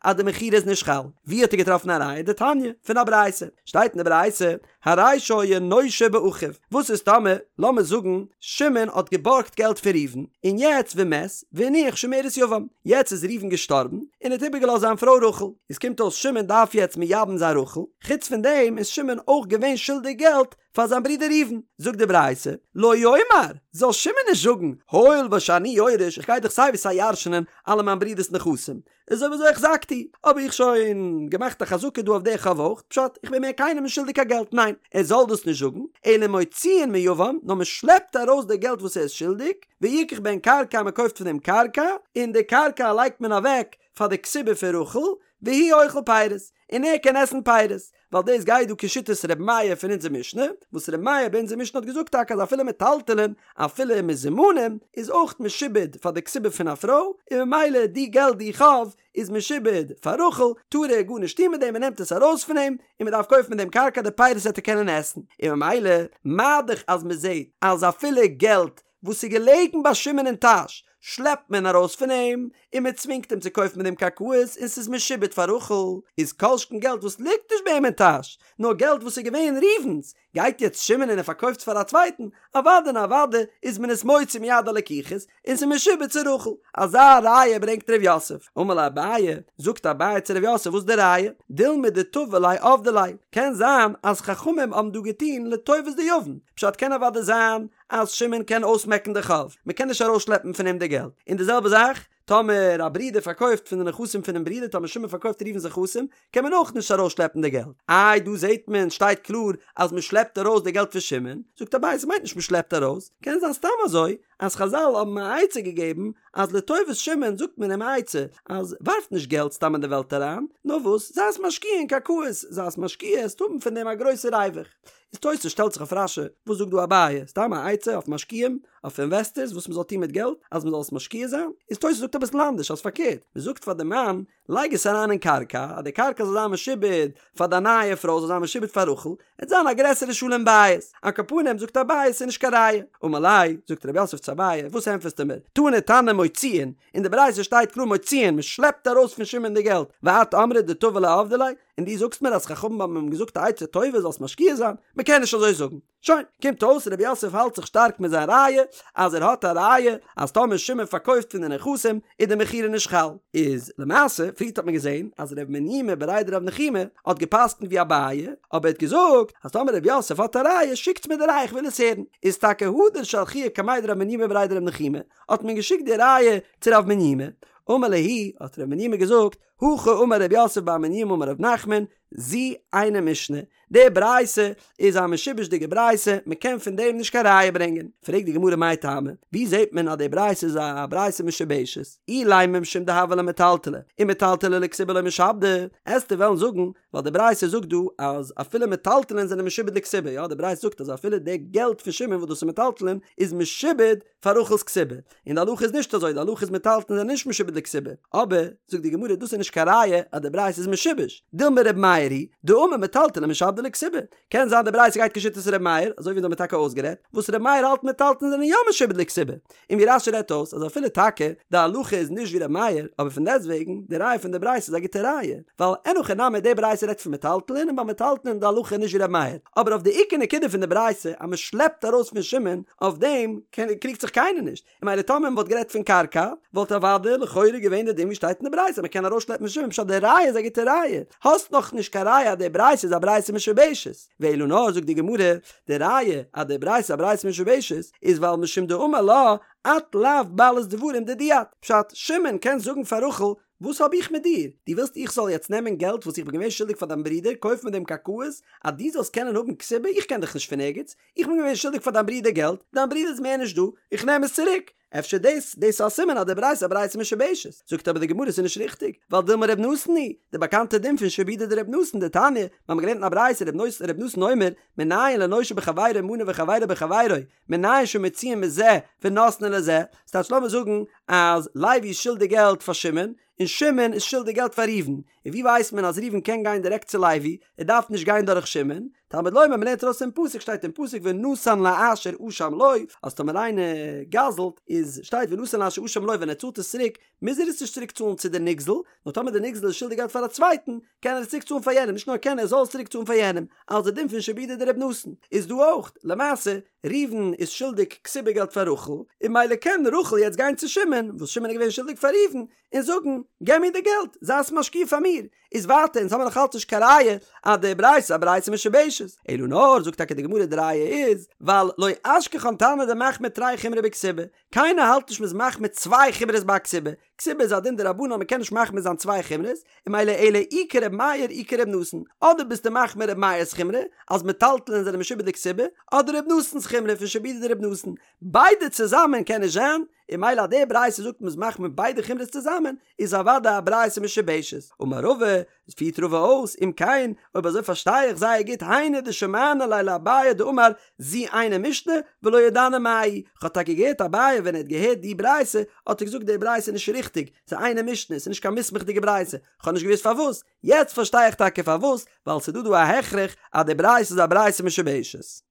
אז די מכירה איז נישט חל. ווי האט ער געטראפן א ראיה? דתניא, פון א ברייתא. שטייט אין די ברייתא, הרי שהיה נושה באחיו. וואס איז טאמער, לאמיר זאגן, שמעון האט געבארגט געלט פון ראובן, און יעצט ומת, והניח שומרת יבם. יעצט איז ראובן געשטארבן, און האט איבערגעלאזט זיין פרוי רחל. איז קומט אויס שמעון דארף יעצט מייבם זיין רחל. חוץ פון דעם איז שמעון אויך געווען שולדיג געלט פאר זיין ברודער ראובן, זאגט די ברייתא, לא יאמר, זאל שמעון נישט זאגן, הואיל ושאני יורש, איך גיי דאך סיי ווי סיי ירש'נען אלע מיין ברודער'ס נכסים, איז אויב אזוי החזקתי, האב איך שוין געמאכט א חזקה דא אויף די חוב אויך, פשט, איך בין מער קיינעם נישט שולדיג קיין געלט, ניין, ער זאל דאס נישט זאגן, אלא מוציאין מיבם, נאר מען שלעפט ארויס די געלט וואס ער איז שולדיג, ויקח בהן קרקע מען קויפט פון דעם קרקע, און די קרקע לייגט מען אוועק פאר די כתובה פון רחל, והוא אוכל פירות, און ער קען עסן פירות, ווייל דאס גייט דא כשיטת ר' מאיר פון אונזער משנה, וואס ר' מאיר ביי אונזער משנה האט געזאגט טאקע אז אפילו מטלטלין, אפילו מזומנים, איז אויך משועבד פאר די כתובה פון א פרוי, און ממילא די געלט די חוב איז משועבד פאר רחל, טאר ער גארנישט טון מיט דעם, מען נעמט עס ארויס פון אים, און מען דארף קויפן מיט דעם קרקע די פירות וועט ער קענען עסן, און ממילא מה דאך אז מען זעט אז אפילו געלט וואס איז געלעגן ביי שמעון אין טאש. שלעפט מען ארויס פון אים, און מען צווינגט אים צו קויפן מיט דעם קרקעות און ס'איז משועבד פאר רחל, איז כל שכן געלט וואס ליגט נישט ביי אים אין טאש, נאר געלט וואס איז געווען ראובן'ס, גייט יעצט שמעון און ער פארקויפט עס פאר א צווייטן, אוודאי און אוודאי איז מען עס מוציא מיד הלקוחות, און ס'איז משועבד צו רחל. אזא ראיה ברענגט ר' יוסף. אמר ליה אביי, זאגט אביי צו ר' יוסף וואס די ראיה? דילמא דתבע ליה עבדי ליה, קען זיין אז חכמים האבן דא געטון לטובת די יבם, פשט קען אוודאי זיין אז שמעון קען אויסמעקן די חוב, מ'קען נישט ארויסשלעפן פון אים די געלט, און די זעלבע זאך טאמער א ברודער פארקויפט פון די נכסים פונעם ברודער, טאמער שמעון פארקויפט ראובן'ס נכסים, קען מען אויך נישט ארויסשלעפן די געלט. איי דא זעט מען שטייט קלאר אז מען שלעפט ארויס די געלט פון שמעון, זאגט אביי ס'מיינט נישט מען שלעפט ארויס, קען זיין סתם אזוי אז חזל האבן א עצה געגעבן אז לטובת שמעון זאגט מען אים א עצה אז ווארף נישט געלט סתם אין די וועלט אריין, נאר וואס זיי עס משקיע אין קרקעות, זיי עס משקיע עסט האבן פון דעם א גרויסע ריווח. איז תוס' שטעלט זיך אויף רש"י, וואס זאגט דא אביי? סתם א עצה אויף משקיעים, אויף אינוועסטערס וואס מען זאל טון מיט געלט אז מען זאל עס משקיע זיין? איז תוס' זאגט אביסל אנדערש אז פארקערט, מען זאגט פאר די מאן, לייג עס אריין אין קרקע, אז די קרקע זאל זיין משועבד פאר דיין נייע פרוי, זאל זיין משועבד פאר רחל, עט זיין א גרעסערע שלום בית. על כל פנים זאגט אביי ס'איז נישט קיין ראיה. אמר ליה, זאגט רב יוסף צו אביי, וואס ענטפערסטו מיר? תני תנא מוציאין, אין די ברייתא שטייט קלאר מוציאין, מען שלעפט ארויס פון שמעון די געלט, ואת אמרת דתבע ליה עבדי ליה, און דו זאגסט מיר אז חכמים האבן אים געזאגט א עצה טובה זאלסט משקיע זיין, מען קען נישט אזוי זאגן. שוין, קומט אויס רב יוסף האלט זיך שטארק מיט זיין ראיה, אז ער האט א ראיה אז טאמער שמעון פארקויפט פון די נכסים איז די מכירה נישט חל. איז למעשה, פריערט האט מען געזען אז רב מניומי בריה דרב נחומי האט געפסקנט ווי אביי, אבער ער האט געזאגט אז טאמער רב יוסף האט א ראיה שיקטס מיר די ראיה איך וויל עס הערן. איז טאקע הדר שלחוה קמיה דרב מניומי בריה דרב נחומי, האט מען געשיקט די ראיה צו רב מניומי, אמר להו, האט רב מניומי געזאגט, הכי אמר רב יוסף בר מניומי אמר רב נחמן, זו אינה משנה, די ברייתא איז א משובש'דיגע ברייתא, מען קען פון דעם נישט קיין ראיה ברענגען. פרעגט די גמרא מאי טעמא, ווי זעט מען אז די ברייתא איז א ברייתא משובשת? אילימא משום דהוה ליה מטלטלי, ומטלטלי לכתובה לא משעבדי, עסטו וועלן זאגן ווייל די ברייתא זאגט דא אז אפילו מטלטלין זענען משועבד לכתובה, יא די ברייתא זאגט אז אפילו די געלט פון שמעון וואס דאס איז מטלטלין איז משועבד פאר רחל'ס כתובה, און די הלכה איז נישט אזוי, די הלכה איז מטלטלין זענען נישט משועבד לכתובה, אבער, זאגט די גמרא, דאס איז נישט קיין ראיה אז די ברייתא איז משובש, דילמא ר' מאיר היא, דאמר מטלטלין משעבדי לכתובה, קען זיין די ברייתא גייט כשיטת ר' מאיר, אזוי ווי אונז האמיר טאקע אויסגערעדט, וואס ר' מאיר האלט מטלטלין זענען יא משועבד לכתובה, און ווי רש"י רעדט אויס אז אפילו טאקע די הלכה איז נישט ווי ר' מאיר, אבער פון דעסטוועגן, די ראיה פון די ברייתא איז א גוטע ראיה, ווייל אין הכי נמי די ברייתא רעדט פון מטלטלין און ביי מטלטלין איז די הלכה נישט ווי ר' מאיר, אבער אויף די עיקר נקודה פון די ברייתא אז מען שלעפט ארויס פון שמעון, אויף דעם קריגט זיך קיינער נישט, און ממילא טאמער מען וואלט גערעדט פון קרקע, וואלט אוודאי לכאורה געווען די דין ווי שטייט אין די ברייתא אז מען קען ארויסשלעפן פון שמעון פשט די ראיה איז א גוטע ראיה, האסט נאך נישט קיין ראיה אז די ברייתא איז א ברייתא משובשת, ואלא נאר זאגט די גמרא, די ראיה אז די ברייתא איז א ברייתא משובשת איז ווייל משום דאמר לה את לאו בעלת דברים דידי את, פשט, שמעון קען זאגן פאר רחל וואס האב איך מיט דיר? דו ווילסט איך זאל יעצט נעמען געלט וואס איך בין געווען שולדיג פאר דיין ברודער, קויפן מיט דעם קרקעות, אז דו זאלסט קענען האבן כתובה? איך קען דיך נישט פון ערגעץ, איך בין געווען שולדיג פאר דיין ברודער געלט, דיין ברודער איז מער נישט דא, איך נעם עס צוריק. אפשר דאס, דאס איז א סימן אז די ברייתא איז א ברייתא משובשת. זאגט אבער די גמרא ס'איז נישט ריכטיג, ווייל דילמא ר' נתן היא, די באקאנטע דין פון שעבודא דר' נתן, דתניא, מיר האבן געלערנט אין א ברייתא ר' נתן אומר, מנין לנושה בחבירו מנה וחבירו בחבירו, מנין שמוציאין מזה ונותנין לזה, ס'טייטש לאמיר זאגן אז לוי איז שולדיג געלט פאר שמעון, און שמעון איז שולדיג געלט פאר ראובן, און ווי ווייסט מען אז ראובן קען גיין דירעקט צו לוי, ער דארף נישט גיין דורך שמעון, תלמוד לומר מ'לערנט ארויס פון פסוק שטייט אין פסוק ונתן לאשר אשם לו, אז טאמער איינער גזל'ט איז שטייט ונתן לאשר אשם לו ווען ער צאלט עס צוריק מוז ער עס נישט צוריק צאלן צו די נגזל, נאר טאמער די נגזל איז שולדיג געלט פאר א צווייטן קען ער עס צוריק צאלן פאר יענעם, נישט נאר קען ער זאל עס צוריק צאלן פאר יענעם, אלס די דין פון שעבודא דר' נתן איז דא אויך, למעשה ראובן איז שולדיג כתובה געלט פאר רחל, און ממילא קען רחל יעצט גיין צו שמעון, וואס שמעון איז געווען שולדיג פאר ראובן, און זאגן, געב מיר די געלט, זיי עס משקיע פאר מיר. איז ווייטער, אונז האמיר נאך אלץ נישט קיין ראיה אז די ברייתא איז א ברייתא משובשת. אלא נאר, זאגט טאקע די גמרא די ראיה איז, ווייל לא אשכחן תנא דמחמיר תרי חומרי בכתובה, קיינער האלט נישט מ'איז מחמיר צוויי חומרות ביי א כתובה, כתובה איז א דין דרבנן מ'קען נישט מחמיר זיין צוויי חומרות, און ממילא אלא אי כר' מאיר אי כר' נתן, אדער ביסטו מחמיר ר' מאיר'ס חומרא אז מטלטלין זענען משועבד לכתובה, אדער ר' נתן'ס חומרא פון שעבודא דר' נתן, ביידע צוזאמען קען נישט זיין, און ממילא אז די ברייתא זאגט מ'איז מחמיר ביידע חומרות צוזאמען, איז אוודאי א ברייתא משובשת. אמר רבא, פירט רבא אויס, אם כן, אויב אזוי פארשטיי איך זייער גוט, היינו דשמענא ליה לאביי דאמר זו אינה משנה ולא ידענא מאי היא, כ'האב טאקע געהערט אביי ווען ער האט געהערט די ברייתא האט ער געזאגט די ברייתא איז נישט ריכטיג, ס'איז אינה משנה, ס'איז נישט קיין מוסמך'דיגע ברייתא, כ'האב נישט געוואוסט פארוואס, יעצט פארשטיי איך טאקע פארוואס, ווייל ס'איז דא דא א הכרח אז די ברייתא איז א ברייתא משובשת.